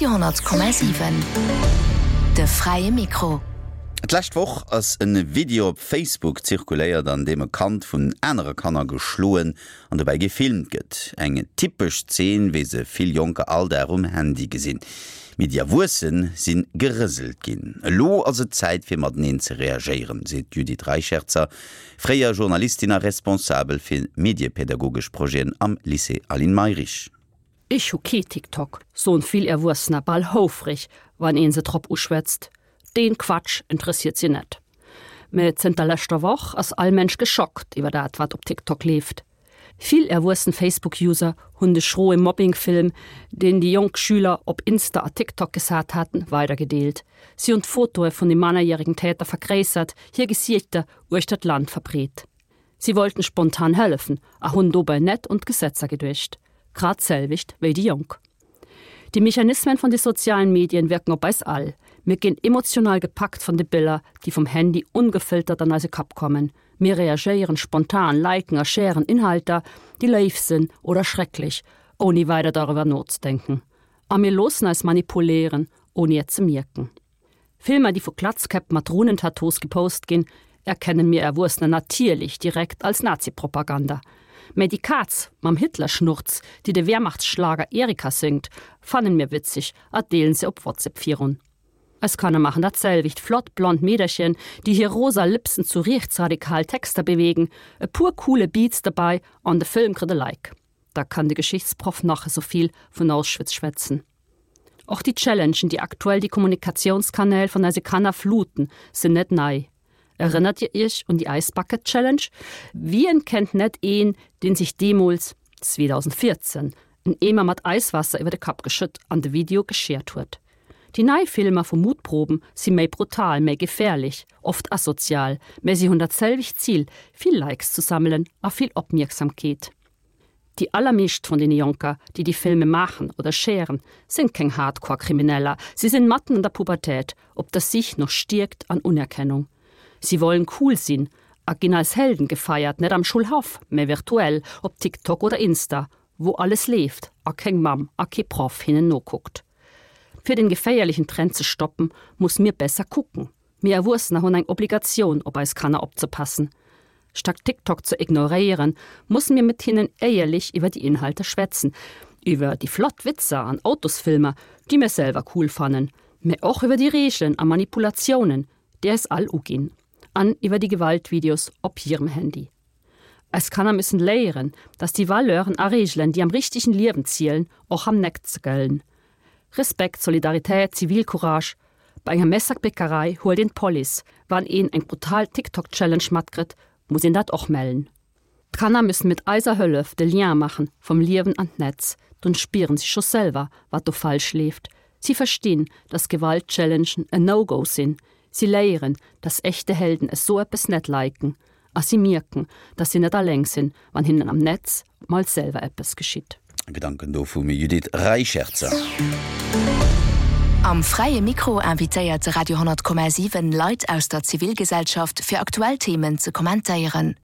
Radio 10,7. De fräie Mikro. D'lescht Woch ass e Video op Facebook zirkuléiert, an deem e Kand vun anere Kanner geschloen an dobäi gefilmt gëtt. Eng typesch Zeen, wéi se vill Jonker all Dag um Handy gesinn. Mee déi Erwuesse si gerëselt ginn. Elo ass et Zäit fir mateneen ze reagéieren, seet d'Judith Reicherzer, fréier Journalistin a Responsabel fir mediepädagogesch Projeten am Lycée Aline Mayrisch. Ech hu kee TikTok, soen vill Erwuessener bal houfreg, wann een se drop uschwätzt. Deen Quatsch interessiert si net. Mä zënter leschter Woch ass all Mensch geschockt iwwer dat, wat op TikTok leeft. Vill erwuessen Facebook-User hunn de schroe Mobbing-Film, deen déi jonk Schüler op Insta a TikTok gesat haten, weidergedeelt. Si hunn d'Fotoe vun de mannerjäregen Täter vergréissert, hir Gesiichter uechter d'Land verbreet. Si wollten spontan hëllefen a hunn dobäi net un d'Gesetzer geduecht. Grad d'selwecht wéi déi Jonk. Déi Mechanismen vun de sozialen Medien wirken op eis all. Mir ginn emotional gepackt vun de Biller, déi vum Handy ongefiltert an eise Kapp kommen. Mir reagéieren spontan, liken a sharen Inhalter, déi léif sinn oder schrecklech, ouni weider doriwwer nozedenken. A mir loossen eis manipuléieren, ouni et ze mierken. Filmer, déi vu Klatzkäpp mat Runentattoos gepost ginn, erkennen mir Erwuessener natierlech direkt als Nazipropaganda. Mä déi Kaz mam Hitlerschnurz, déi de Wehrmachtsschlager Erika séngt, fannen mir witzeg a deelen se op WhatsApp virun. Eis Kanner maachen dat selwecht, flott blond Meederchen, déi hir rosa Lëpsen zu riechtsradikal Texter bewegen, e puer coole Beats derbei an de Film kritt e Like. Da kann de Geschichtsproff nach esou vill vun Auschwitz schwätzen. Och déi Challengen, déi aktuell déi Kommunikatiounskanäl vun eise Kanner fluten, sinn net nei. Erënnert Dir Iech un déi Ice Bucket Challenge? Wien kennt net een, deen sech deemools, 2014, en Eemer mat Eiswaasser iwwer de Kapp geschëtt an de Video geshared huet? Déi nei Filmer vu Mutproben si méi brutal, méi gefährlech, oft asozial, mä si hunn dat selwecht Zil, vill Likes ze sammelen a vill Opmierksamkeet. Déi allermeescht vun deene Jonker, déi déi Filme maachen oder sharen, sinn keng Hardcore-Krimineller. Si sinn matten an der Pubertät, op der Sich no Stierkt an Unerkennung. Si wollen cool sinn a ginn als Helden gefeiert, net am Schulhaff, mä virtuell op TikTok oder Insta, wou alles leeft a keng Mamm a kee Proff hinnen nokuckt. Fir den geféierlechen Trend ze stoppen, muss mir besser kucken. Mir Erwuessener hunn eng Obligatioun op eis Kanner opzepassen. Statt TikTok ze ignoréieren, musse mir mat hinnen éierlech iwwer déi Inhalter schwätzen, iwwer déi flott Witzer an Autosfilmer, déi mir selwer cool fannen, mä och iwwer déi Reegelen a Manipulatiounen, déi eis all uginn, an iwwer déi Gewaltvideos op hirem Handy. Eis Kanner müssen léieren, dass déi Valeuren a Reegelen, déi am richtegen Liewen zielen, och am Netz gëllen. Respekt, Solidaritéit, Zivilcourage. Bei enger Messerbäckerei huelt een d'Police. Wann een eng brutal TikTok-Challenge matkritt, muss een dat och mellen. D'Kanner müssen mit eiser Hëllef de Lien maachen vum Liewen an d'Netz. Dunn spieren si scho selwer, wat do falsch leeft. Si verstinn, dass Gewalt-Challengen en No-Go sinn. Si léieren, dass echte Helden esou eppes net liken. A si mierken, dass si net alleng sinn, wann hinnen am Netz mol selwer eppes geschitt. Gedanken do vum Judith Reicherzer. Am Fräie Mikro invitéiert de Radio 10,7 Leit aus der Zivilgesellschaft fir aktuell Themen ze kommentéieren.